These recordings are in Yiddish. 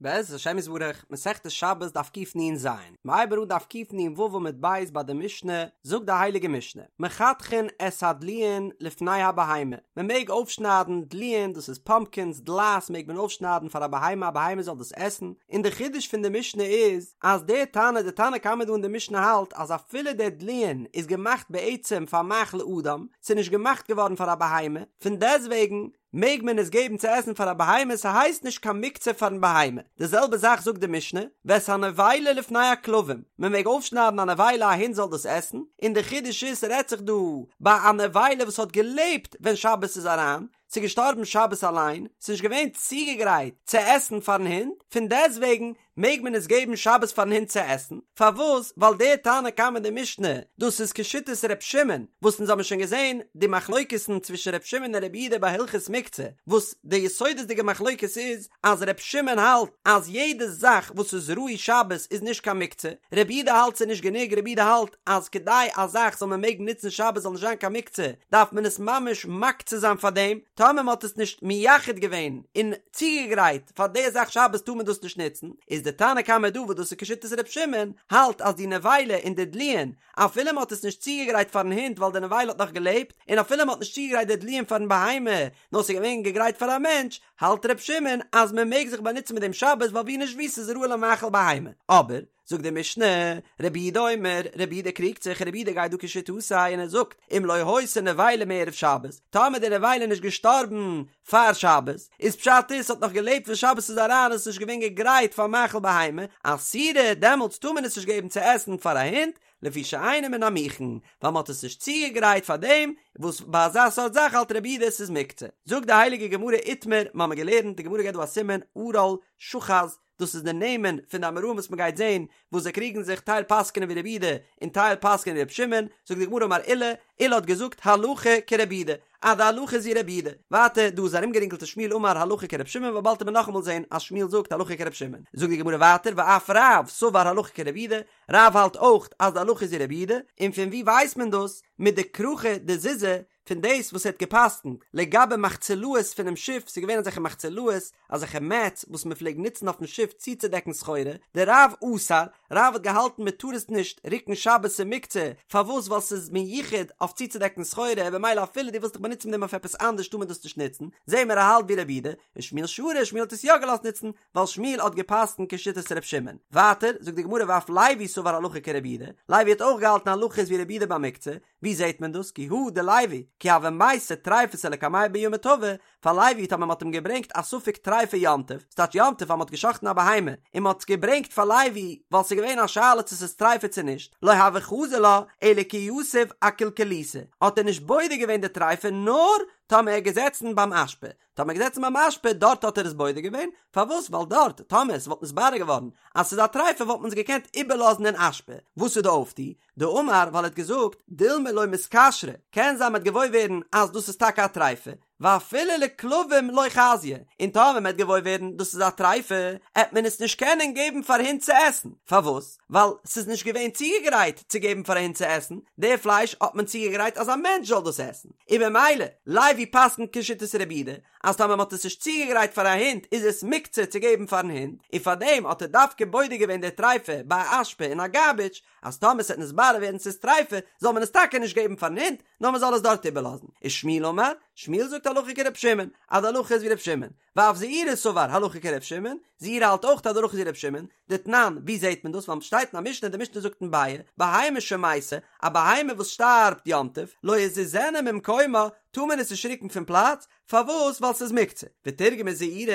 בעזרת השם יתברך, מסכת שבת דף קנ"ז, מ'הייבט אן דף קנ"ו עמוד ב' ביי די משנה, זאגט די הייליגע משנה, מחתכין את הדלועין לפני הבהמה, מען מעג אויפשניידן דלועין, דאס איז פאמפקינס, דלעת מעג מען אויפשניידן פאר א בהמה, א בהמה זאל דאס עסן, און די חידוש פון די משנה איז, אז דער תנא, די תנא קמא דא אין די משנה האלט אז אפילו דער דלועין איז געמאכט בעצם פאר מאכל אדם, ס'איז נישט געמאכט געווארן פאר א בהמה, פון דעסטוועגן, מעג מען עס געבן צו עסן פאר א בהמה, ס'הייסט נישט קיין מוקצה פארן בהמה. די זעלבע זאך זאגט די משנה, ואת הנבילה לפני הכלבים, מען מעג אויפשניידן א נבילה א הונט זאל דאס עסן, און די חידוש איז ס'רעדט זיך דא ביי א נבילה וואס האט געלעבט ווען שבת איז אריין, ס'איז געשטארבן שבת אליין, ס'איז נישט געווען צוגעגרייט צו עסן פארן הונט, פון דעסטוועגן מעג מען עס געבן שבת פארן הונט צו עסן? פארוואס? ווייל דער תנא קמא די משנה, דאס איז כשיטת ר' שמעון, וואס אונז האבן שוין געזען די מחלוקת'ן צווישן ר' שמעון און ר' יהודה ביי הלכות מוקצה, וואס די יסודות'דיגע מחלוקת איז אז ר' שמעון האלט אז יעדע זאך וואס איז ראוי שבת איז נישט קיין מוקצה, ר' יהודה האלט ס'איז נישט גענוג, ר' יהודה האלט אז כדי א זאך זאל מען מעגן נוצן שבת זאל נישט זיין קיין מוקצה דארף מען עס ממש מקצה זיין פאר דעם, טאמער מען האט עס נישט מייחד געווען און צוגעגרייט פאר די זאך שבת טאר מען דאס נישט נוצן, איז די תנא קמא דא וואס דאס איז כשיטת ר' שמעון, האלט אז די נבילה און די דלועין אפילו מען האט עס נישט צוגעגרייט פארן הונט ווייל די נבילה האט נאך געלעבט, און אפילו מען האט נישט צוגעגרייט די דלועין פארן בהמה נאר ס'איז געווען געגרייט פאר א מענטש, האלט ר' שמעון אז מען מעג זיך באנוצן מיט דעם שבת ווייל ווי נישט ווי ס'איז ראוי למאכל בהמה, אבער. זאגט די משנה, רבי יהודה אומר, רבי יהודה קריגט זיך, רבי יהודה גייט דא כשיטתו און ער זאגט, אם לא היתה נבילה מערב שבת, טאמער די נבילה איז נישט געשטארבן פאר שבת, איז פשט איז ס'האט נאך געלעבט ווען שבת איז אריין און ס'איז נישט געווען געגרייט פאר מאכל בהמה, אסורה, דעמאלטס טאר מען עס נישט געבן צו עסן פאר א הונט, לפי שאינה מן המוכן, ווייל מ'האט עס נישט צוגעגרייט פאר דעם, וואס ביי אזא סארט זאך האלט רבי יהודה עס איז מוקצה. זאגט די הייליגע גמרא איתמר, מ'האמיר געלערנט, די גמרא געבט דא א סימן, ערל, שח"ז, דאס איז די נעמען פון די אמוראים וואס מען גייט זען וואס זיי קריגן זיך טייל פסק'נען ווי רבי יהודה און טייל פסק'נען ווי רבי שמעון, זאגט די גמרא אמר עולא, עולא האט געזאגט הלכה כרבי יהודה, אז די הלכה איז ווי רבי יהודה, ווייטער דא איז ארומגערינגלט ושמואל אמר הלכה כרבי שמעון ווייל באלד וועט מען נאכאמאל זען אז שמואל זאגט הלכה כרבי שמעון, זאגט די גמרא ווייטער ואף רב סבר הלכה כרבי יהודה, רב האלט אויך אז די הלכה איז ווי רבי יהודה, און פון ווי ווייסט מען דאס? מדכרכי דזוזא פון דאס וואס ער האט גע'פסק'נט לגבי מחצלאות פונעם שיף, ס'איז געווען אזעלכע מחצלאות, אזעלכע מעטס וואס מען פלעגט נוצן אויפן שיף צוצודעקן סחורה, דרב אסר, רב האט געהאלטן מען טאר עס נישט רוקן שבת ס'איז מוקצה, פארוואס ווייל ס'איז מיוחד אויף צוצודעקן סחורה, במילא אפילו דו ווילסט דיך באנוצן מיט דעם אויף עפעס אנדערש טאר מען דאס נישט נוצן, זעהן מיר ער האלט ווי רבי יהודה, ושמואל שרא, שמואל האט עס יא געלאזט נוצן, ווייל שמואל האט געפסקנט כשיטת ר' שמעון. ווייטער, זאגט די גמרא ואף לוי סבר הלכה כרבי יהודה, לוי האט אויך געהאלטן הלכה איז ווי רבי יהודה ביי מוקצה, ווי זעהט מען דאס? כי הא דלוי, כי הוה מייתי טריפתא לקמיה ביומא טבא, פאר לוי טאמער מ'האט אים געברענגט א ספק טריפה יום טוב, ס'טייטש יום טוב אז מ'האט גע'שחט'ן א בהמה, און מ'האט עס געברענגט פאר לוי ווייל ס'איז געווען א שאלה צו ס'איז טריפה צו נישט, לא הוה חזי לה אלא כי יתיב אקילקליתא, האט ער נישט בודק געווען די טריפה נאר טאמער ער איז געזעצן ביים אשפה, טאמער געזעצן ביים אשפה דארט האט ער עס בודק געווען, פארוואס ווייל דארט טאמער עס וואלט נתברר געווארן אז ס'איז א טריפה וואלט מען עס געקענט איבערלאזן אין אשפה, וואס איז די אויפטו? דאמר ווייל ער האט געזאגט דילמא לא מתכשרא, קען זיין מ'עט געוואויר ווערן אז דאס איז טאקע א טריפה, ואפילו לכלבים לא חזיא, און טאמער מ'עט געוואויר ווערן דאס איז א טריפה עט מען עס נישט קענען געבן פאר הינט צו עסן, פארוואס? ווייל ס'איז נישט געווען צוגעגרייט צו געבן פאר א הונט צו עסן, די פלייש האט מען צוגעגרייט אז א מענטש זאל דאס עסן, און במילא, לוי פסק'נט כשיטת רבי יהודה, אז טאמער מ'האט עס נישט צוגעגרייט פאר א הונט איז עס מוקצה צו געבן פארן הונט, און פארדעם האט ער דווקא בודק געווען די טריפה ביי א אשפה אין א גארביטש, אז טאמער ס'וועט נתברר ווערן ס'איז טריפה זאל מען עס טאקע נישט געבן פארן הונט, נאר מ'זאל עס דארט איבערלאזן. ושמואל אמר, שמואל זאגט הלכה כר' שמעון, אז די הלכה איז ווי ר' שמעון, ואף זעירא סבר הלכה כר' שמעון, זעירא האלט אויך אז די הלכה איז ווי ר' שמעון, דתנן, ווי זעהט מען דאס? ווייל שטייט אין א משנה, די משנה זאגט אין ביעא, בהמה שמתה, א בהמה וואס שטארבט יום טוב, לא יזיזנה ממקומה, טאר מען עס נישט רוקן פון פלאץ, פארוואס? ווייל ס'איז מוקצה. ותרגמה זעירא,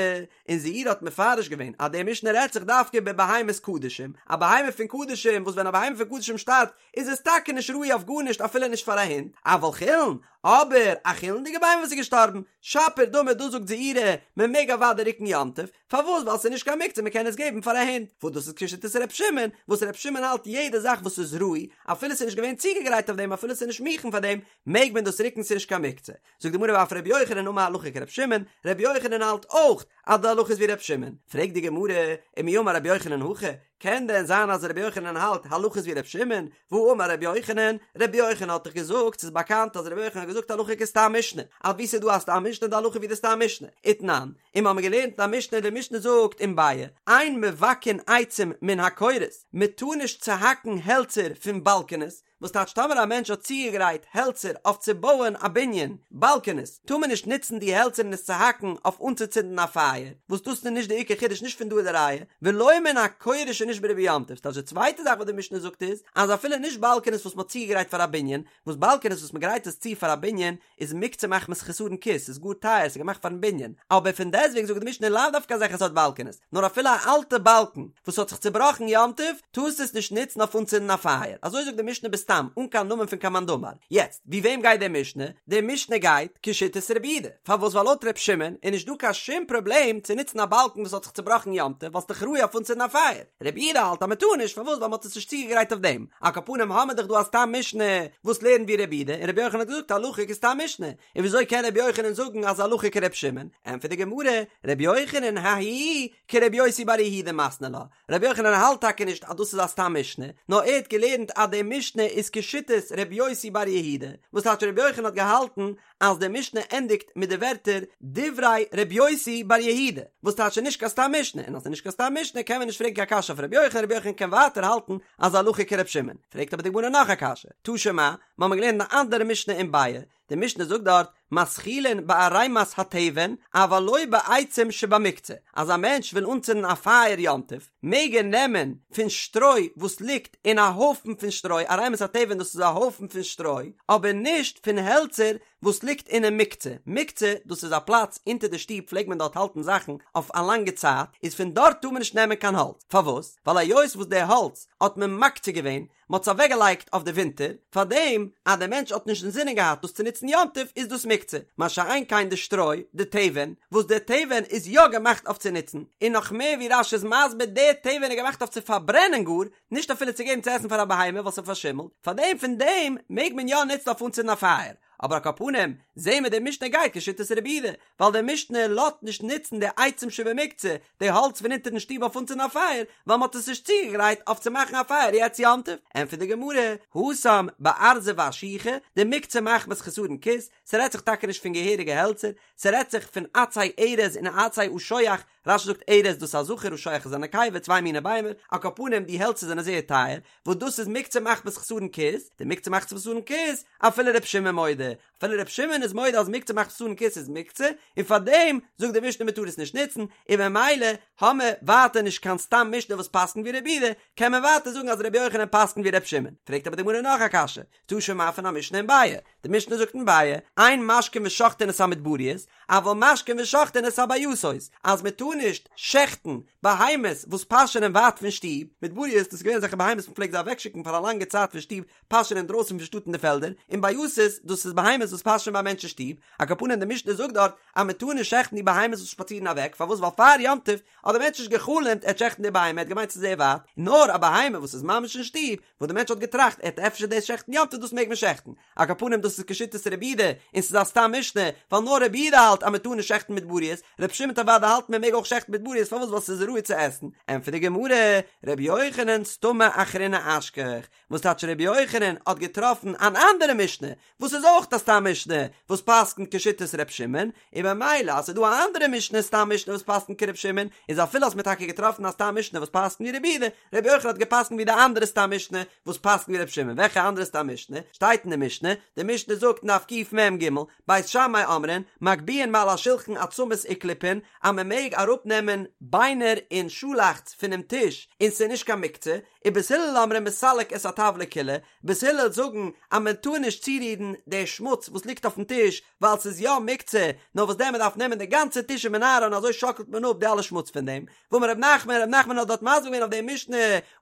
און זעירא האט מפרש געווען אז די משנה רעדט זיך דווקא בבהמת קדשים, א בהמה פון קדשים, וואס ווען א בהמה פון קדשים שטארבט, איז עס טאקע נישט ראוי אויף גארנישט אפילו נישט פאר א הונט, אבל חולין, אבער א חולין'דיגע בהמה וואס איז געשטארבן, שפיר דמי דא זאגט זעירא, מען מעג אוודאי רוקן יום טוב, פארוואס ווייל ס'איז נישט קיין מוקצה מען קען עס געבן פאר א הונט, וואס דאס איז כשיטת ר' שמעון, וואס ר' שמעון האלט יעדע זאך וואס איז ראוי, אפילו ס'איז נישט געווען צוגעגרייט אויף דעם אפילו ס'איז נישט מוכן פאר דעם, מעג מען דאס רוקן ס'איז נישט קיין מוקצה. זאגט די גמרא ואף ר' יוחנן אמר הלכה כר' שמעון, ר' יוחנן האלט אויך אז די הלכה איז ווי ר' שמעון, פרעגט די גמרא, ומי אמר ר' יוחנן הכי, קען דען זיין אז רבי יוחנן האלט הלכה איז ווי רבי שמעון? והאמר רבי יוחנן, רבי יוחנן האט דאך געזאגט, ס'איז באקאנט אז רבי יוחנן האט געזאגט הלכה כסתם משנה, אז וואו ס'איז דא א סתם משנה איז די הלכה ווי די סתם משנה, ותנן, און מ'האמיר געלערנט אין א משנה, די משנה זאגט אין ביעא, אין מבקעין עצים מן הקורות, מ'טאר נישט צוהאקן העלצער פון באלקענעס, וואס טייטש טאמער א מענטש האט צוגעגרייט העלצער אויף צו בויען א בנין, באלקענעס, טאר מען נישט נוצן די העלצער און עס צוהאקן אויף אנצוצינדן א פייער, וואס דאס איז נישט די עיקר חידוש נישט פון דא איז די ראיה, ולא מן הקורה שנשברה ביום טוב, ס'טייטש די צווייטע זאך וואס די משנה זאגט איז, אז אפילו נישט באלקענעס וואס מ'האט צוגעגרייט פאר א בנין, וואס באלקענעס וואס מ'גרייט עס צו פאר א בנין איז מוקצה מחמת חסרון כיס, ס'איז גאר טייער, ס'איז געמאכט פארן בנין, אבער פון דעסטוועגן זאגט די משנה לאו דווקא אזעלכע סארט באלקענעס, נאר אפילו א אלטע באלקן וואס האט זיך צובראכן יום טוב, טארסטו עס נישט נוצן אויף אנצינדן א פייער, אזוי זאגט די משנה בסתם, אן קיין נאמען פון קיין מאן דאמר. יעצט, ווי וועם גייט די משנה? די משנה גייט כשיטת רבי יהודה, פארוואס ווייל לויט ר' שמעון איז נישט דא קיין שום פראבלעם צו נוצן א באלקן וואס האט זיך צובראכן יום טוב ווייל ס'איז דאך ראוי אויף אנצינדן א פייער, רבי יהודה האלט אז מ'טאר נישט, פארוואס ווייל מ'האט עס נישט צוגעגרייט אויף דעם, על כל פנים האמיר דאך דא א סתם משנה וואס לערנט ווי רבי יהודה, און רבי יוחנן האט געזאגט הלכה כסתם משנה, און וויאזוי קען רבי יוחנן זאגן אז הלכה כר' שמעון? ענטפערט די גמרא, רבי יוחנן ההיא כרבי יוסי בר יהודה מתני לה, רבי יוחנן האלט טאקע נישט אז דאס איז א סתם משנה, נאר ער האט געלערנט אז די משנה איז כשיטת רבי יוסי בר יהודה, וואס טייטש רבי יוחנן האט געהאלטן אז די משנה ענדיגט מיט די ווערטער דברי רבי יוסי בר יהודה, וואס טייטש ס'איז נישט קיין סתם משנה, און אז ס'איז נישט קיין סתם משנה קען מען נישט פרעגן קיין קשיא אויף רבי יוחנן, רבי יוחנן קען ווייטער האלטן אז הלכה כרבי שמעון. פרעגט אבער די גמרא נאך א קשיא, תא שמע, מ'האמיר געלערנט אן אנדערע משנה אין ביעא, די משנה זאגט דארט, מתחילין בערימת התבן, אבל לא בעצים שבמוקצה, אז א מענטש וויל אנצינדן א פייער יום טוב, מעג ער נעמען פון שטרוי וואס ליגט אין א הויפן פון שטרוי, ערימת התבן דאס איז א הויפן פון שטרוי, אבער נישט פון העלצער וואס ליגט אינעם מוקצה, מוקצה דאס איז א פלאץ אונטער די שטוב פלעגט מען דארט האלטן זאכן אויף א לאנגע צייט, איז פון דארט טאר מען נישט נעמען קיין האלץ, פארוואס? ווייל היות וואס די האלץ האט מען מקצה געווען, מען האט עס אוועקגעלייגט אויף די ווינטער, פארדעם אז דער מענטש האט נישט אינזינען געהאט דאס צו נוצן יום טוב איז דאס מוקצה, מה שאין כן די שטרוי, די תבן, וואס די תבן איז יא געמאכט אויף צו נוצן, און נאך מער ווי רש"י איז מסביר די תבן איז געמאכט אויף צו פארברענען גאר, נישט אפילו צו געבן צו עסן פאר א בהמה ווייל ס'פארשימלט, פארדעם פון דעם מעג מען יא נוצן אויף אנצינדן א פייער. אבער על כל פנים, זעהן מיר די משנה גייט כשיטת רבי יהודה, ווייל די משנה לאזט נישט נוצן די עצים שבמוקצה, די האלץ פון אונטערן שטוב אויף אנצינדן א פייער, ווייל מ'האט עס נישט צוגעגרייט אויף צו מאכן א פייער יעצט יום טוב. ענטפערט די גמרא, התם בארזי ואשוחי, דמוקצה מחמת חסרון כיס, ס'רעדט זיך טאקע נישט פון געהעריגע העלצער, ס'רעדט זיך פון עצי ארז און עצי אשוח, רש"י זאגט ארז דאס איז א זכר אשוח איז א נקבה צוויי מיני ביימער, על כל פנים די העלצער זענען זייער טייער, וואס דאס איז מוקצה מחמת חסרון כיס, דמוקצה מחמת חסרון כיס, אפילו ר' שמעון מודה, אפילו ר' שמעון איז מודה אז מוקצה מחמת חסרון כיס איז מוקצה, און פארדעם זאגט די משנה מ'טאר עס נישט נוצן, און ממילא האמער ווייטער נישט קיין סתם משנה וואס פסק'נט ווי רבי יהודה, קען מען ווייטער זאגן אז ר' יוחנן פסק'נט ווי ר' שמעון. פרעגט אבער די גמרא נאך א קשיא, תא שמע פון א משנה אין ביעא, די משנה זאגט אין ביעא, אין משקין ושוחטין את המדבריות, אבל משקין ושוחטין את הבייתות, אז מען טאר נישט שעכטן בהמות וואס פאשענען ווייט פון שטוב, מדבריות דאס איז געווען אזעלכע בהמות מען פלעגט זיי אוועקשיקן פאר א לאנגע צייט פון שטוב פאשען אינדרויסן פון שטאט אין די פעלדער, און בייתות דאס איז בהמות וואס פאשען ביי א מענטש אין שטוב, על כל פנים די משנה זאגט דארט אז מען טאר נישט שעכטן די בהמות וואס שפאצירן אוועק, פארוואס ווייל פאר יום טוב האט דער מענטש נישט גע'חלומ'ט ער וועט שעכטן די בהמה ער האט געמיינט ס'איז זייער ווייט, נאר א בהמה וואס איז ממש אין שטוב, וואס די מענטש האט געטראכט ער וועט אפשר דאס שעכטן יום טוב דאס מעג מען שעכטן, על כל פנים דאס איז כשיטת רבי יהודה און ס'איז א סתם משנה, ווייל נאר רבי יהודה האלט אז מען טאר נישט שעכטן מדבריות, רבי שמעון וועט אוודאי האלטן מען מעג אויך שעכטן מדבריות פארוואס ווייל ס'איז ראוי צו עסן, ענטפערט די גמרא, רבי יוחנן סתמא אחרינא אשכח, וואס טייטש רבי יוחנן האט געטראפן אן אנדערע משנה וואס איז אויך א סתם משנה וואס פסק'נט כשיטת ר' שמעון, און במילא אז ס'איז דא א אנדערע משנה סתם משנה וואס פסק'נט כר' שמעון, איז אפילו האסט מיר טאקע געטראפן א סתם משנה וואס פסק'נט ווי רבי יהודה, רבי יוחנן האט געפסק'נט ווי די אנדערע סתם משנה וואס פסק'נט ווי ר' שמעון, וועלכע אנדערע סתם משנה? שטייט אין די משנה, די משנה זאגט אין דף קמ"ג, בית שמאי אומרים, מגביהין מעל השולחן עצמות וקליפין, אז מען מעג אראפנעמען ביינער און שאלאכץ פונעם טיש און ס'איז נישט קיין מוקצה, ובית הלל אומרים מסלק את הטבלא כולה, בית הלל זאגן אז מען טאר נישט צורירן די שמוץ וואס ליגט אויפן טיש ווייל ס'איז יא מוקצה, נאר וואס דען מען דארף נעמען די גאנצע טיש ומנערה און אזוי שאקלט מען אפ די אלע שמוץ פון דעם. ואמר ר' נחמן, ר' נחמן האט דארט מסביר געווען אויף די משנה,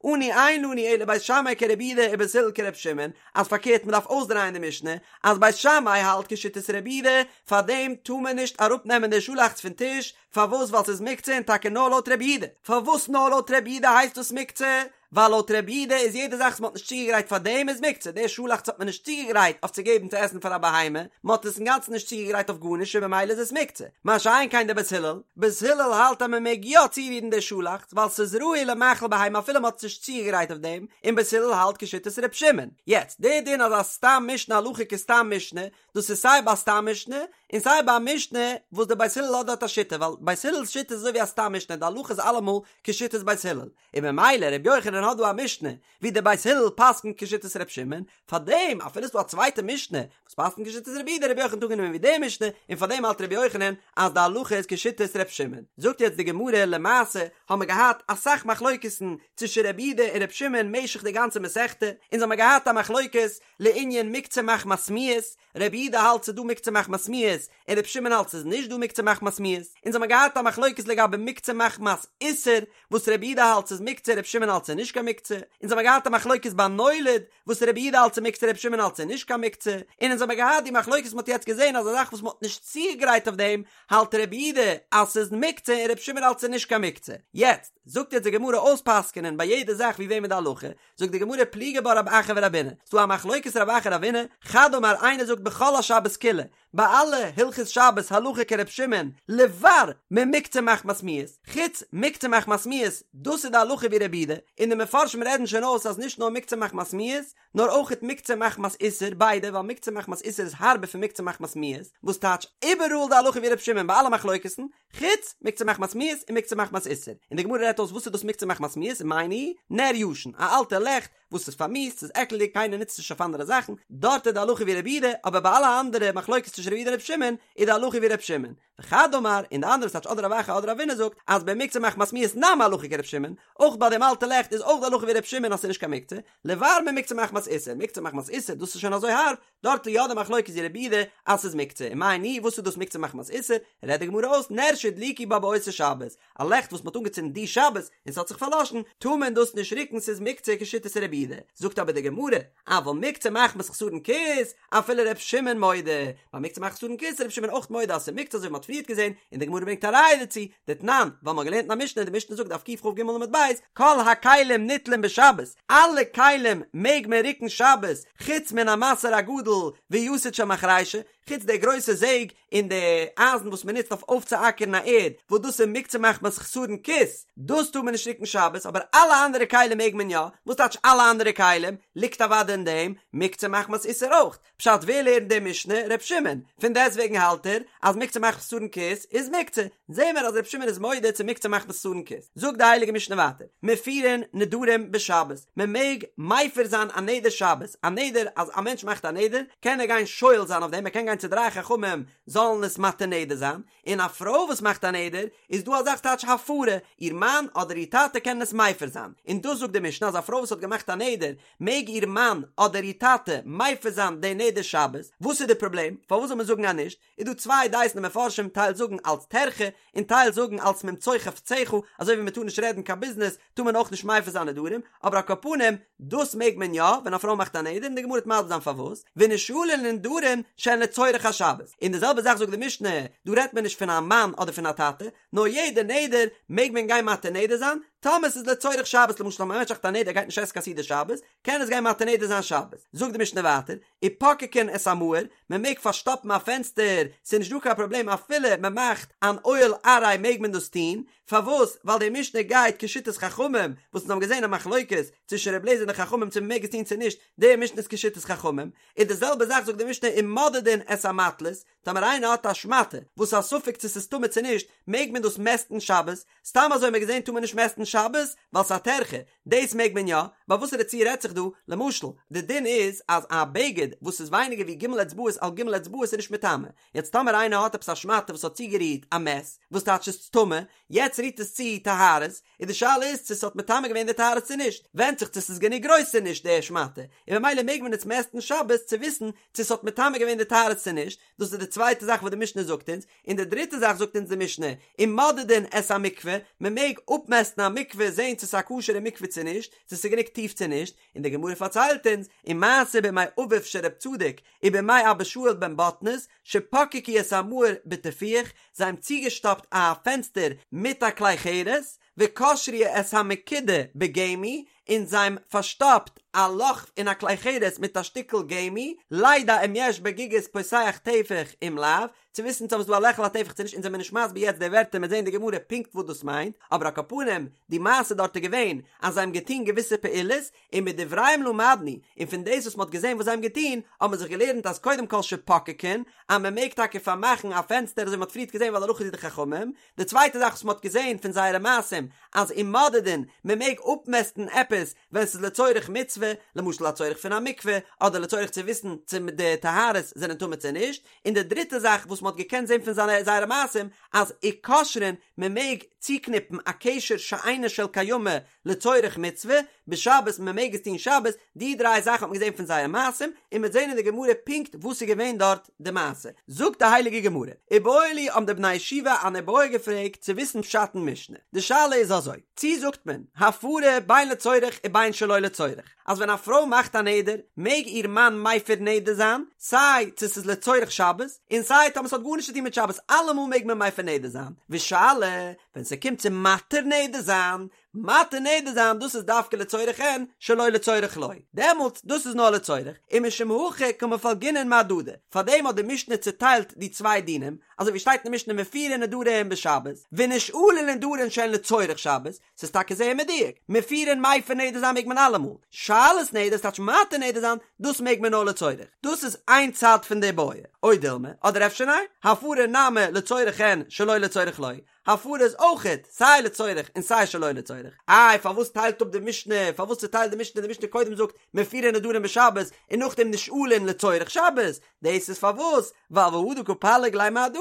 אנו אין לנו אלא בית שמאי כרבי יהודה ובית הלל כר' שמעון, אז פארקערט מען דארף אויסדרייען די משנה, אז בית שמאי האלט כשיטת רבי יהודה, פארדעם טאר מען נישט אראפנעמען די שאלאכץ פון טיש, פארוואס ווייל ס'איז מוקצה און טאקע נאר לויט רבי יהודה, פארוואס נאר לויט רבי יהודה הייסט דאס מוקצה? ווייל לויט רבי יהודה איז יעדע זאך וואס מען האט נישט צוגעגרייט פאר דעם איז מוקצה, די שאלאכץ האט מען נישט צוגעגרייט אויף צו געבן צו עסן פאר א בהמה, מען האט עס אינגאנצן נישט צוגעגרייט אויף גארנישט און במילא איז עס מוקצה. מה שאין כן די בית הלל, בית הלל האלט אז מען מעג יא צורירן די שאלאכץ ווייל ס'איז ראוי למאכל בהמה אפילו מען האט עס נישט צוגעגרייט אויף דעם, און בית הלל האלט כשיטת ר' שמעון. יעצט, די דין אז א סתם משנה הלכה כסתם משנה, דאס איז סיי ביי סתם משנה, און סיי ביי א משנה וואס די בית הלל האט דארט א שיטה, ווייל בית הלל'ס שיטה איז אזוי ווי א סתם משנה, די הלכה איז אלעמאל כשיטת בית הלל, און ממילא ר' יוחנן האט דא א משנה ווי די בית הלל פסק'נט כשיטת ר' שמעון, פארדעם אפילו ס'דא א צווייטע משנה וואס פסק'נט כשיטת רבי יהודה, ר' יוחנן האט אנגענומען ווי די משנה, און פארדעם האלט ר' יוחנן אז די הלכה איז כשיטת ר' שמעון. זאגט יעצט די גמרא, למעשה האבן מיר געהאט אסאך מחלוקת'ן צווישן רבי יהודה און ר' שמעון משך די גאנצע מסכתא, אונז האמיר געהאט א מחלוקת לענין מוקצה מחמת מיאוס, רבי יהודה האלט ס'איז דא מוקצה מחמת מיאוס, און רבי שמעון האלט ס'איז נישט דא מוקצה מחמת מיאוס, אונז האמיר געהאט א מחלוקת לגבי מוקצה מחמת איסור, וואס רבי יהודה האלט ס'איז מוקצה רבי שמעון האלט ס'איז נישט קיין מוקצה, אונז האמיר געהאט א מחלוקת ביי נולד, וואס רבי יהודה האלט ס'איז מוקצה רבי שמעון האלט ס'איז נישט קיין מוקצה, און אונז האמיר געהאט די מחלוקת מ'האט יעצט געזען אז א זאך וואס מ'האט נישט צוגעגרייט אויף דעם, האלט רבי יהודה אז ס'איז מוקצה און רבי שמעון האלט ס'איז נישט קיין מוקצה. יעצט, זאגט יעצט די גמרא אויספסק'ענען ביי יעדע זאך ווי וועמען די הלכה, זאגט די גמרא פליגי בה רב אחא ורבינא, ס'דא א מחלוקת רב אחא רבינא, חד אמר איינער זאגט בכל השבת כולה, ביי אלע הלכות שבת הלכה כר' שמעון, לבר ממוקצה מחמת מיאוס, חוץ מוקצה מחמת מיאוס, דאס איז די הלכה ווי רבי יהודה, און די מפרשים רעדן שוין אויס אז נישט נאר מוקצה מחמת מיאוס, נאר אויכעט מוקצה מחמת איסור, ביידע, ווייל מוקצה מחמת איסור איז הארבער פון מוקצה מחמת מיאוס, וואס טייטש איבעראל די הלכה ווי ר' שמעון ביי אלע מחלוקת'ן, חוץ מוקצה מחמת מיאוס און מוקצה מחמת איסור, און די גמרא רעדט אויס וואס איז דאס מוקצה מחמת מיאוס מאי ניהו, נר ישן, א אלטע לעכט וואס איז פארמיאוסט, ס'איז עקלדיג, קיינער נוצט עס נישט אויף אנדערע זאכן, דארט איז די הלכה ווי רבי יהודה, אבער ביי אלע אנדערע מחלוקת צווישן רבי יהודה און רבי שמעון, איז די הלכה ווי רבי שמעון. וחד אמר, און די אנדערע ס'טייטש אדער רב אחא אדער רבינא זאגט, אז במוקצה מחמת מיאוס נמי הלכה כרבי שמעון, אויך ביי דעם אלטע לעכט איז אויך די הלכה ווי רבי שמעון אז ס'איז נישט קיין מוקצה, לבר ממוקצה מחמת איסור, מוקצה מחמת איסור דאס איז שוין אזוי הארב, דארט איז יא די מחלוקת ווי רבי יהודה אז ס'איז מוקצה, ומאי ניהו וואס איז דאס מוקצה מחמת איסור, רעדט די גמרא אויס נר שהדליקו בה באותה שבת, א לעכט וואס מ'האט אנגעצינדן די שבת און ס'האט זיך פארלאשן, טאר מען דאס נישט רוקן ס'איז מוקצה כשיטת רבי יהודה, זאגט אבער די גמרא, אבל מוקצה מחמת חסרון כיס, אפילו ר' שמעון מודה, ביי מוקצה מחמת חסרון כיס איז ר' שמעון אויך מודה אז ס'איז מוקצה אזוי ווי מ'האט פריערט געזען, און די גמרא ברענגט א ראיה דערצו, דתנן, ווייל מ'האט געלערנט אין א משנה, די משנה זאגט דף קכ"ג עמוד ב', כל הכלים ניטלין בשבת, אלע כלים מעג מען רוקן שבת, חוץ מן המסר הגדול ויתד של מחרישה, חוץ די גרויסע זעג און די אייזן וואס מען נוצט אויף אויפצואקערן א ערד, וואס דאס איז מוקצה מחמת חסרון כיס, דאס טאר מען נישט רוקן שבת, אבער אלע אנדערע כלים מעג מען יא, וואס טייטש אלע אנדערע כלים? ליגט אוודאי אין דעם מוקצה מחמת איסור אויך. פשט ווער לערנט די משנה? ר' שמעון, פון דעסטוועגן האלט ער אז מוקצה מחמת חסרון כיס איז מוקצה, זעהן מיר אז ר' שמעון איז מודה צו מוקצה מחמת חסרון כיס. זאגט די הייליגע משנה ווייטער, מפירין נדרים בשבת, מען מעג מפר זיין א נדר שבת, א נדר אז א מענטש מאכט א נדר קען ער גיין שואל זיין אויף דעם, ער קען גיין צו דריי חכמים זאלן עס מתיר נדר זיין, און א פרוי וואס מאכט א נדר איז דא א זאך טייטש הפרה, איר מאן אדער איר טאטע קענען עס מפר זיין, און דאס זאגט די משנה אז א פרוי וואס האט געמאכט א נדר מעג איר מאן אדער איר טאטע מפר זיין די נדר שבת, וואס איז די פראבלעם? פארוואס זאל מען זאגן אז נישט? איז דא צוויי דעות אין די מפרשים טייל זאגן אלץ טרחה און טייל זאגן אלץ ממצוא חפציך, אזוי ווי מען טאר נישט רעדן קיין ביזנעס טאר מען אויך נישט מפר זיין נדרים, אבער על כל פנים דאס מעג מען יא ווען א פרוי מאכט א נדר און די גמרא וועט מסביר זיין פארוואס, ונשאלין לנדרים שהן לצורך השבת, און די זעלבע זאך זאגט די משנה, דא רעדט מען נישט פון א מאן אדער פון א טאטע, נאר יעדע נדר מעג מען גיין מתיר נדר זיין, טאמער ס'איז לצורך שבת, למשל טאמער א מענטש מאכט א נדר ער גייט נישט עסן קיין סעודה שבת, קען עס גיין מתיר נדר זיין שבת. זאגט די משנה ווייטער, ופוקקין את המאור, מען מעג פארשטאפן א פענסטער, ס'איז נישט דא קיין פראבלעם אפילו מען מאכט אן אוהל עראי מעג מען דאס טון, פארוואס? ווייל די משנה גייט כשיטת חכמים, וואס אונז האבן געזען א מחלוקת צווישן ר' אליעזר און די חכמים צו מען מעג עס טון צו נישט, די משנה איז כשיטת חכמים, און די זעלבע זאך זאגט די משנה ומודדין את המטלית, טאמער איינער האט א שמאטע וואס איז א ספק צו ס'איז טמא צו נישט, מעג מען דאס מעסטן שבת? סתם אזוי האט מען געזען טאר מען נישט מעסטן שבת ווייל ס'איז א טרחה, דאס מעג מען יא, ביי וואסערע ציור רעדט זיך דא? למשל, די דין איז אז א בגד וואס איז ווייניגער ווי ג' אצבעות על ג' אצבעות איז נישט מטמא, יעצט טאמער איינער האט עפעס א שמאטע וואס האט צוגערירט א מת, וואס טייטש ס'איז טמא, יעצט רירט עס צו טהרות, איז די שאלה איז צו ס'האט מטמא געווען די טהרות צו נישט, ווענדט זיך צו ס'איז גענוג גרויס צו נישט די שמאטע, און ממילא מעג מען עס מעסטן שבת צו וויסן צו ס'האט מטמא געווען די טהרות צו נישט, דאס איז די צווייטע זאך וואס די משנה זאגט אונז, און די דריטע זאך זאגט אונז די משנה, ומודדין את המקווה, מען מעג אפמעסטן א מקווה זען צו ס'איז א כשר'ע מקווה צו נישט, צו ס'איז גענוג טיף צו נישט, און די גמרא פארציילט אונז, ומעשה בימי אביו של רב צדוק, ובימי אבא שאול בן בטנית, שפקקו את המאור בטיפוח, זיי האבן צוגעשטאפט א פענסטער מיט א כלי חרס, וקשרו את המקידה בגמי, און זיי האבן פארשטאפט א לאך אין א כלי חרס מיט א שטיקל גמי, לידע אם יש בגיגית פותח טפח אם לאו, צו וויסן צו ס'איז דא א לעכל א טפח צו נישט, אונז זעמיר נישט מסביר יעצט די ווערטער מ'עט זעהן די גמרא פונקט וואס דאס מיינט, אבער על כל פנים די מעשה דארט איז געווען אז זיי האבן געטון געוויסע פעולות, און מדבריהם למדנו, און פון דאס וואס מ'האט געזען וואס זיי האבן געטון, האט מען זיך געלערנט אז קודם כל שפוקקין, אז מ'מעג טאקע פארמאכן א פענסטער אזוי ווי מ'האט פריערט געזען ווייל הלכה איז ווי די חכמים, די צווייטע זאך וואס מ'האט געזען פון זייערע מעשים, אז ומודדין, מ'מעג אפמעסטן עפעס ווען ס'איז לצורך מצוה, למשל א צורך פון א מקווה, אדער לצורך צו וויסן צו די טהרות זענען טמא צו נישט, און די דריטע זאך וואס מ'האט געקענט זען פון זייערע מעשים, אז וקושרין, מ'מעג צוקניפן א קשר שאינו של קיימא לצורך מצוה, בשבת מען מעג עס טון שבת, די דריי זאכן האט מען געזען פון זייער מעשים, און מ'וועט זען אין די גמרא פונקט וואס איז געווען דארט די מעשה. זאגט די הייליגע גמרא, איבעיא להו האבן די בני ישיבה אן איבעיא געפרעגט צו וויסן פשט אין משנה, די שאלה איז אזוי, צי זאגט מען, הפרה בין לצורך ובין שלא לצורך, אז ווען א פרוי מאכט א נדר, מעג איר מאן מפר נדר זיין, סיי צו ס'איז לצורך שבת, און סיי טאמער ס'האט גארנישט צו טון מיט שבת, אלעמאל מעג מען מפר נדר זיין, ושאלה, ווען ס'קומט צו מתיר נדר זיין, מתיר נדר זיין דאס איז דווקא לצורך אין, שלא לצורך לא, דעמאלטס דאס איז נאר לצורך, ומשום הכי קמפלגינן מהדדי, פארדעם האט די משנה צוטיילט די צוויי דינים, אזוי ווי שטייט אין די משנה מפירין נדרים בשבת, ונשאלין נדרים שהן לצורך שבת, ס'איז טאקע זייער מדויק, מפירין מפר נדר זיין מעג מען אלעמאל, שאלת נדר ס'טייטש מתיר נדר זיין, דאס מעג מען נאר לצורך, דאס איז איין צד פון די בעיא, או דילמא, אדער אפשר ניין, הפרה נמי לצורך אין שלא לצורך לא, הפרה איז אויכעט סיי לצורך און סיי שלא לצורך. איי פארוואס טיילט אפ די משנה, פארוואס צוטיילט די משנה, די משנה קודם זאגט מפירין נדרים בשבת און נאכדעם נשאלין לצורך שבת, דאס איז פארוואס ווייל והא דקא פליג ליה מהדדי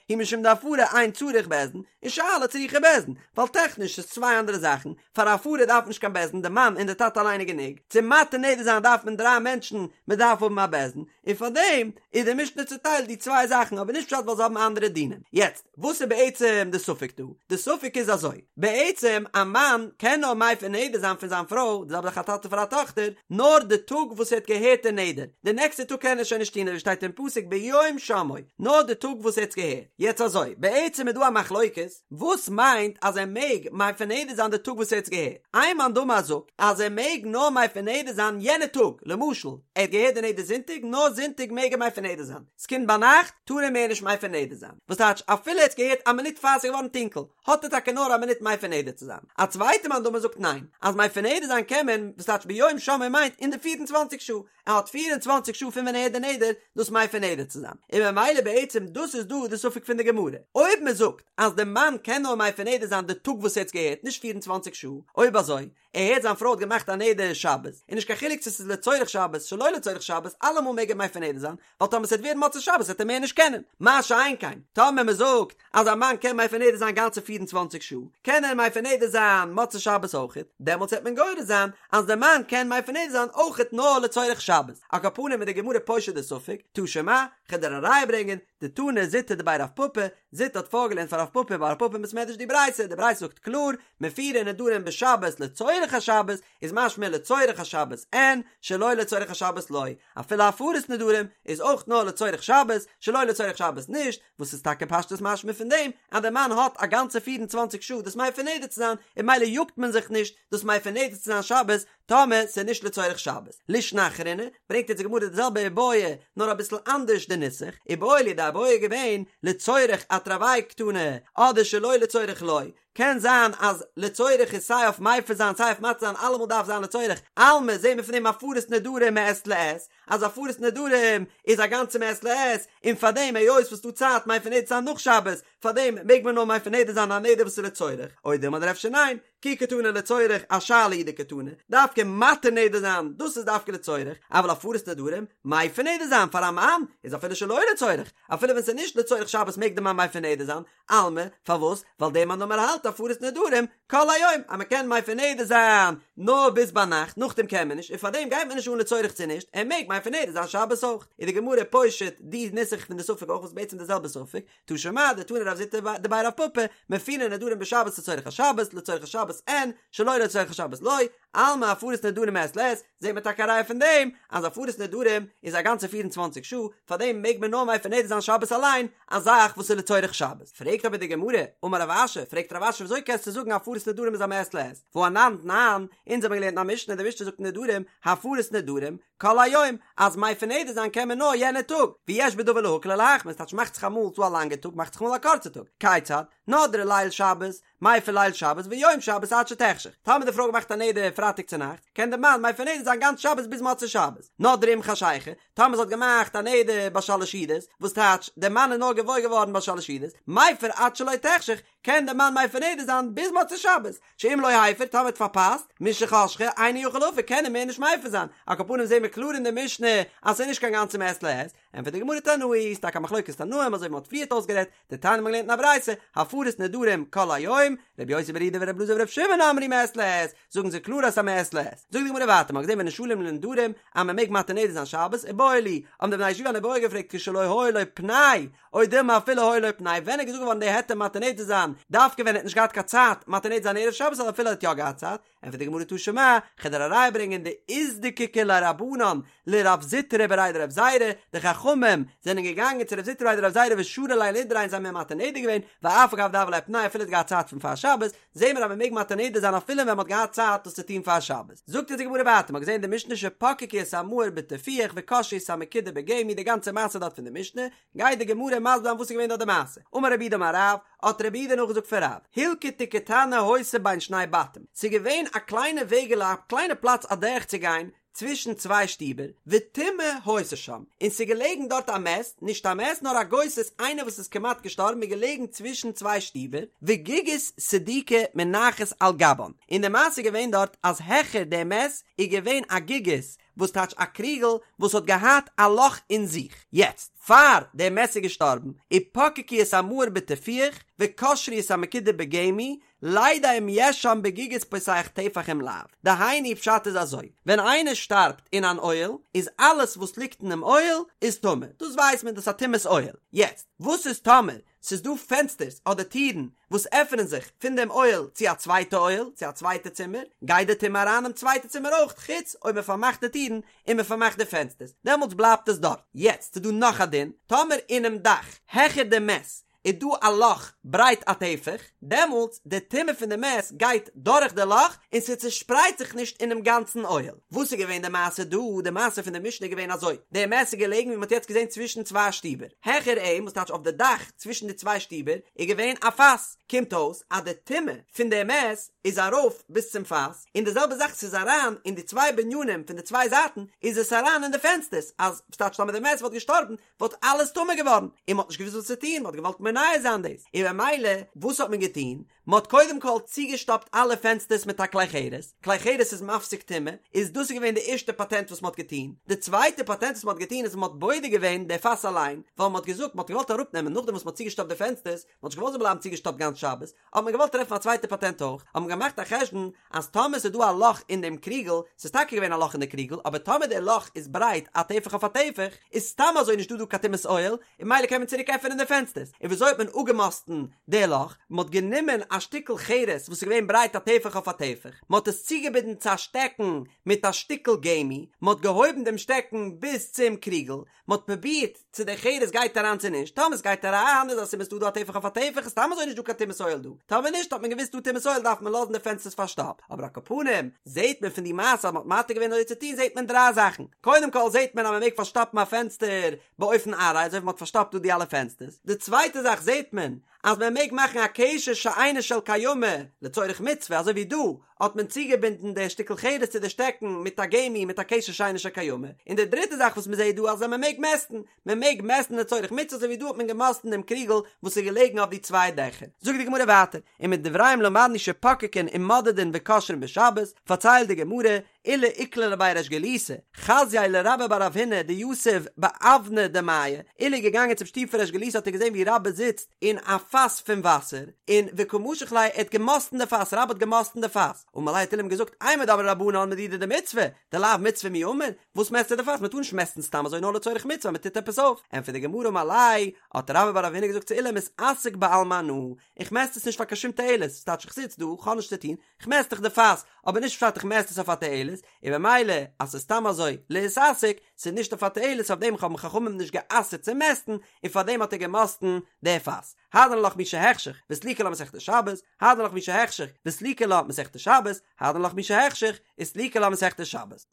הוא משום דהפרה אין צריך בית דין און שאלה צריכה בית דין, ווייל טעכניש ס'איז צוויי אנדערע זאכן, פאר הפרה דארף מען נישט קיין בית דין די מאן און די טאטע אליין איז גענוג, צו מתיר נדר זיין דארף מען דריי מענטשן, מען דארף האבן א בית דין, און פארדעם איז די משנה צוטיילט די צוויי זאכן אבער נישט פשט ווייל זיי האבן אנדערע דינים. יעצט. וואס איז בעצם די ספק דא? די ספק איז אזוי, בעצם א מאן קען נאר מפר נדר זיין פון זיין פרוי, די זעלבע זאך א טאטע פאר א טאכטער, נאר די טאג וואס ער האט געהערט די נדר, די נעקסטע טאג קען ער שוין נישט טון אזוי שטייט אין פסוק ביום שמעו, נאר די טאג וואס ער האט עס געהערט. יעצט אזוי, בעצם איז דא א מחלוקת, וואס מיינט אז ער מעג מפר נדר זיין די טאג וואס ער האט עס געהערט? איין מאן דאמר זאגט אז ער מעג נאר מפר נדר זיין יענע טאג, למשל ער האט געהערט די נדר זונטאג, נאר זונטאג מעג ער מפר נדר זיין, ס'קומט ביינאכט טאר ער מער נישט מפר נדר זיין, וואס טייטש אפילו ער האט געהערט א מינוט פאר ס'איז געווארן טונקל, האט ער טאקע נאר א מינוט מפר נדר צו זיין. א צווייטע מאן דאמר זאגט ניין, אז מפר נדר זיין קען מען, וואס טייטש ביום שמעו מיינט אין די פיר און צוואנציג שעה, ער האט פיר און צוואנציג שעה פון ווען ער הערט די נדר דאס מפר נדר צו זיין, און ממילא בעצם דאס איז דא די ספק פון די גמרא, אויב מען זאגט אז די מאן קען נאר מפר נדר זיין די טאג וואס ער האט געהערט נישט פיר און צוואנציג שעה, אויב אזוי ער הערט זיין פרוי האט געמאכט א נדר שבת, און נישט קיין חילוק צו ס'איז לצורך שבת שלא לצורך שבת, אלעמאל מעג ער מפר נדר זיין, ווייל טאמער ס'וועט ווערן מוצאי שבת וועט ער מער נישט קענען. מה שאין כן, טאמער מ'זאגט אז א מאן קען מפר נדר זיין גאנצע פיר און צוואנציג שעה, קען ער מפר נדר זיין מוצאי שבת אויכעט, דעמאלטס וועט מען גורס זיין אז דער מאן קען מפר נדר זיין אויכעט נאר לצורך שבת. על כל פנים איז די גמרא פושט די ספק, תא שמע, כ'וועל דיר א ראיה ברענגען, דתני זוטא דבי רב פפא, זוטא האט פארגעלערנט פאר רב פפא ביי רב פפא אין בית מדרש די ברייתא, די ברייתא זאגט קלאר, מפירין נדרים בשבת לצורך השבת, איז משמע לצורך השבת אין, שלא לצורך השבת לא, אפילו הפרת נדרים איז אויך נאר לצורך שבת, שלא לצורך שבת נישט, וואס איז טאקע פשטות משמע פון דעם אז דער מאן האט א גאנצע פיר און צוואנציג שעה דאס מפר נדר צו זיין, און ממילא יאגט מען זיך נישט דאס מפר נדר צו זיין שבת, טאמער ס'איז נישט לצורך שבת. לישנא אחרינא, ברענגט יעצט די גמרא די זעלבע איבעיא, נאר אביסל אנדערש די נוסח, איבעיא להו די איבעיא איז געווען, לצורך אתרוייהו קתני, אדער שלא לצורך לא, קען זיין אז לצורך איז סיי אויף מפר זיין סיי אויף מתיר זיין אלעמאל דארף זיין לצורך, אלמא זעהן מיר פון דעם הפרת נדרים מעת לעת, אז הפרת נדרים איז א גאנצע מעת לעת, און פארדעם היות וואס ס'דא צייט מפר נדר זיין נאך שבת, פארדעם מעג מען נאר מפר נדר זיין א נדר וואס איז לצורך, או דילמא אדער אפשר ניין, כי קתני לצורך אשאלה הוא דקתני, דווקא מתיר נדר זיין, דאס איז דווקא לצורך, אבל הפרת נדרים, מפר נדר זיין פאר א מאן, איז אפילו שלא לצורך, אפילו ווען ס'איז נישט לצורך שבת מעג די מאן מפר נדר זיין, אלמא, פארוואס? ווייל דער מאן דאמר האלט הפרת נדרים כל היום, אז מ'קען מפר נדר זיין נאר ביז ביינאכט, נאכדעם קען מען נישט, און פארדעם גייט מען נישט אן לצורך צו נישט, ער מעג מפר נדר זיין שבת אויך. איז די גמרא פושט די נוסח פון די ספק אויך וואס איז בעצם די זעלבע ספק, תא שמע דתני רב זוטא דבי רב פפא, מפירין נדרים בשבת לצורך השבת, לצורך השבת אין, שלא לצורך השבת לא, אלמא הפרת נדרים מעת לעת, זעט מען טאקע א ראיה פון דעם אז הפרת נדרים איז א גאנצע 24 שעה, פארדעם מעג מען נאר מפר נדר זיין שבת אליין, א זאך וואס איז לצורך שבת. פרעגט אבער די גמרא, אמר רב אשי, פרעגט רב אשי וויאזוי קענסטו זאגן הפרת נדרים איז א מעת לעת, והא אנן תנן, אונז האבן געלערנט אין א משנה, די משנה זאגט אין נדרים, הפרת נדרים, כל היום, אז מפר נדר זיין קען מען נאר יענע טאג, ויש בדבר להקל ולהחמיר, ס'טייטש מאכט זיך אמאל ס'דא א לאנגע טאג מאכט זיך אמאל א קורצע טאג, כיצד? נדרה ליל שבת, מפר ליל שבת ויום שבת עד שתחשך, טאמער די פרוי האט געמאכט א נדר פרייטאג צונאכטס, קען די מאן מפר נדר זיין גאנץ שבת ביז מוצאי שבת, נדרה עם חשיכה, טאמער זי האט געמאכט א נדר ביי שלש סעודות, וואס טייטש, די מאן איז נאר געוואויר געווארן ביי שלש סעודות, מפר עד שלא תחשך, קען די מאן מפר נדר זיין ביז מוצאי שבת, שאם לא הפר, טאמער האט פארפאסט, משחשכה, אינו יכול להפר, קען ער מער נישט מפר זיין, על כל פנים זעהן מיר קלאר אין די משנה אז ס'איז נישט קיין גאנצע מעת לעת, ענטפערט די גמרא תנאי, איז טאקע א מחלוקת תנאים אזוי ווי מ'האט פריערט אויסגערעדט, דתניא מ'האט געלערנט אין א ברייתא, הפרת נדרים כל היום, רבי יוסי ברבי יהודה ורבי אלעזר ברבי שמעון אמרו מעת לעת, זאגן זיי קלאר אז ס'איז א מעת לעת. זאגט די גמרא ווייטער, מ'האט געזען ונשאלים לנדרים אז מ'מעג מתיר נדר זיין שבת, איבעיא להו, האבן די בני הישיבה אן איבעיא געפרעגט כשלא היה לו פנאי, או דילמא אפילו היה לו פנאי, ווען איז געזאגט געווארן די היתר מתיר נדר זיין, דווקא ווען ער האט נישט געהאט קיין צייט מתיר נדר זיין ערב שבת אדער אפילו ער האט יא געהאט צייט, ענטפערט די גמרא תא שמע, כ'וועל דיר א ראיה ברענגען דאיזדקיקו ליה רבנן לרב זוטרא בריה דרב זירא, די חכמים זענען געגאנגען צו רב זוטרא בריה דרב זירא ושרו ליה לנדריה און זיי האבן אים מתיר נדר געווען, ואף על גב דהוה ליה פנאי אפילו ער האט געהאט צייט פון פאר שבת, זעהן מיר אז מען מעג מתיר נדר זיין אפילו ווען מען האט געהאט צייט דאס צו טון פאר שבת. זאגט אונז די גמרא ווייטער, מען האט געזעהן אין די משנה שפקקו את המאור בטיפוח וקשרו את המקידה בגמי די גאנצע מעשה דארט פון די משנה, גייט די גמרא מסביר זיין וואס איז געווען דארט די מעשה, אמר רב יהודה אמר רב, האט רב יהודה נאכגעזאגט פון רב, הילקטא קטנה היתה בין שני בתים, ס'איז געווען א קליינע וועגעלע א קליינע פלאץ אדורך צו גיין צווישן צוויי שטיבער, וטומאה היתה שם, און ס'איז געלעגן דארט א מת, נישט א מת נאר א גוסס איינער וואס איז כמעט געשטארבן איז געלעגן צווישן צוויי שטיבער, וגיגית סדוקה מונחת על גבן, און די מעשה איז געווען דארט אז העכער די מת איז געווען א גיגית וואס טייטש א קריגל וואס האט געהאט א לאך אין זיך, יעצט פאר דער מת איז געשטארבן, ופקקו את המאור בטיפוח וקשרו את המקידה בגמי, לידע אם יש שם בגיגית פותח טפח אם לאו, דהיינו פשט איז אזוי, ווען איינער שטארבט אין אן אוהל, איז אלעס וואס ליגט אינעם אוהל איז טמא, דאס ווייסט מען דאס איז א טומאת אוהל, יעצט וואס איז טאמער ס'איז דא פענסטערס אדער טירן וואס עפענען זיך פון דעם אוהל צו א צווייטע אוהל, צו א צווייטע צימער, גייט די טומאה אריין אינעם צווייטע צימער אויך, חוץ אויב מען פארמאכט די טירן און מען פארמאכט די פענסטערס, דעמאלטס בלייבט עס דארט. יעצט ס'איז דא נאך א דין, טאמער אינעם דאך העכער די מת איז דא א לאך ברייט א טפח, דעמאלטס די טומאה פון די מת גייט דורך די לאך און ס'צושפרייט זיך נישט אינעם גאנצן אוהל. וואס איז געווען די מעשה דא? די מעשה פון די משנה איז געווען אזוי, די מת איז געלעגן ווי מ'האט יעצט געזען צווישן צוויי שטיבער, העכער אים, וואס טייטש אויף די דאך צווישן די צוויי שטיבער, איז געווען א פאס, קומט אויס אז די טומאה פון די מת איז ארויף ביז צום פאס, און די זעלבע זאך ס'איז אריין אין די צוויי בנינים פון די צוויי זייטן איז עס אריין אין די פענסטערס, אז וואס טייטש טאמער די מת וואלט געשטארבן וואלט אלעס טמא געווארן, און מ'האט נישט געוואוסט וואס צו טון, מ'האט געוואלט מונע זיין דאס, און במילא וואס האט מען געטון? מען האט קודם כל צוגעשטאפט אלע פענסטערס מיט א כלי חרס, כלי חרס איז מפסיק טומאה, איז דאס איז געווען די ערשטע פאטענט וואס מען האט געטון, די צווייטע פאטענט וואס מען האט געטון איז מען האט בודק געווען די פאס אליין, ווייל מען האט געזאגט מען האט געוואלט אראפנעמען נאכדעם וואס מען האט צוגעשטאפט די פענסטערס, מען האט נישט געוואלט זאל בלייבן צוגעשטאפט גאנץ שבת, האט מען געוואלט טרעפן א צווייטע פאטענט אויך, האט מען געמאכט א חשבון אז טאמער ס'איז דא א לאך אין דעם קריגל, ס'איז טאקע געווען א לאך אין די קריגל, אבער טאמער דער לאך איז ברייט א טפח אויף א טפח, איז סתם אזוי נישטא דא קיין טומאת אוהל, און ממילא קען מען צוריק עפענען די פענסטערס, און וויאזוי האט מען אפגעמאסטן די לאך? מען האט גענומען א שטיקל חרס וואס איז געווען ברייט א טפח אויף א טפח, מען האט עס צוגעבינדן צו א שטעקן מיט א שטיקל גמי, מען האט געהויבן דעם שטעקן ביז צום קריגל, מען האט פרובירט צו די חרס גייט אריין צו נישט, טאמער עס גייט אריין איז א סימן ס'דא דא א טפח אויף א טפח איז סתם אזוי נישט דא קיין טומאת אוהל דא, טאמער נישט האט מען געוואוסט דא טומאת אוהל דארף מען לאזן די פענסטערס פארשטאפט, אבער על כל פנים זעהט מען פון די מעשה אז מען האט מתיר געווען אזוי צו טון זעהט מען דריי זאכן, קודם כל זעהט מען אז מען מעג פארשטאפן א פענסטער באופן ארעי אזוי ווי מען האט פארשטאפט דא די אלע פענסטערס, די צווייטע זאך זעהט מען אז מען מעג מאכן א קשר שאינו של קיימא לצורך מצוה אזוי ווי דא האט מען צוגעבינדן די שטיקל חרס צו די שטעקן מיט א גמי מיט א קשר שאינו של קיימא, און די דריטע זאך וואס מען זעהט דא אז מען מעג מעסטן, מען מעג מעסטן לצורך מצוה אזוי ווי דא האט מען געמאסטן דעם קריגל וואס איז געלעגן אויף די צוויי דעכער. זאגט די גמרא ווייטער, ומדבריהם למדנו שפוקקין ומודדין וקושרין בשבת, פארציילט די גמרא, עולא איקלע לבי ריש גלותא, חזייה לרבה בר רב הונא דיתיב באוונא דמיא, עולא איז געגאנגען צום שטוב פון ריש גלותא האט ער געזען ווי רבה זיצט אין א פאס פון וואסער, און וקא משח ליה, ער האט געמאסטן די פאס, רבה האט געמאסטן די פאס, אמר ליה האט עולא אים געזאגט, אימר דאמרי רבנן מדידה דמצוה, דלאו מצוה מי אמור, וואס מעסטו די פאס, מען טאר נישט מעסטן סתם אזוי נאר לצורך מצוה, מען טוט עפעס אויף, ענטפערט די גמרא אמר ליה, האט רבה בר רב הונא געזאגט צו עולא מתעסק בעלמא אנא, איך מעסט עס נישט פאר קיין שום תועלת, ס'טייטש איך זיץ דא, כ'האב נישט צו טון, כ'מעסט דאך די פאס, אבער נישט פשט איך מעסט עס אויף א תועלת, און במילא אז ס'איז סתם אזוי להתעסק, ס'איז נישט אויף א תועלת אויף דעם האבן חכמים נישט גע'אסר'ט צו מעסטן, און פאר דעם האט ער געמאסטן די פאס. הדרן עלך מי שהחשיך, וסליקא לה מסכת שבת, הדרן עלך מי שהחשיך, וסליקא לה מסכת שבת, הדרן עלך מי שהחשיך, וסליקא לה מסכת שבת.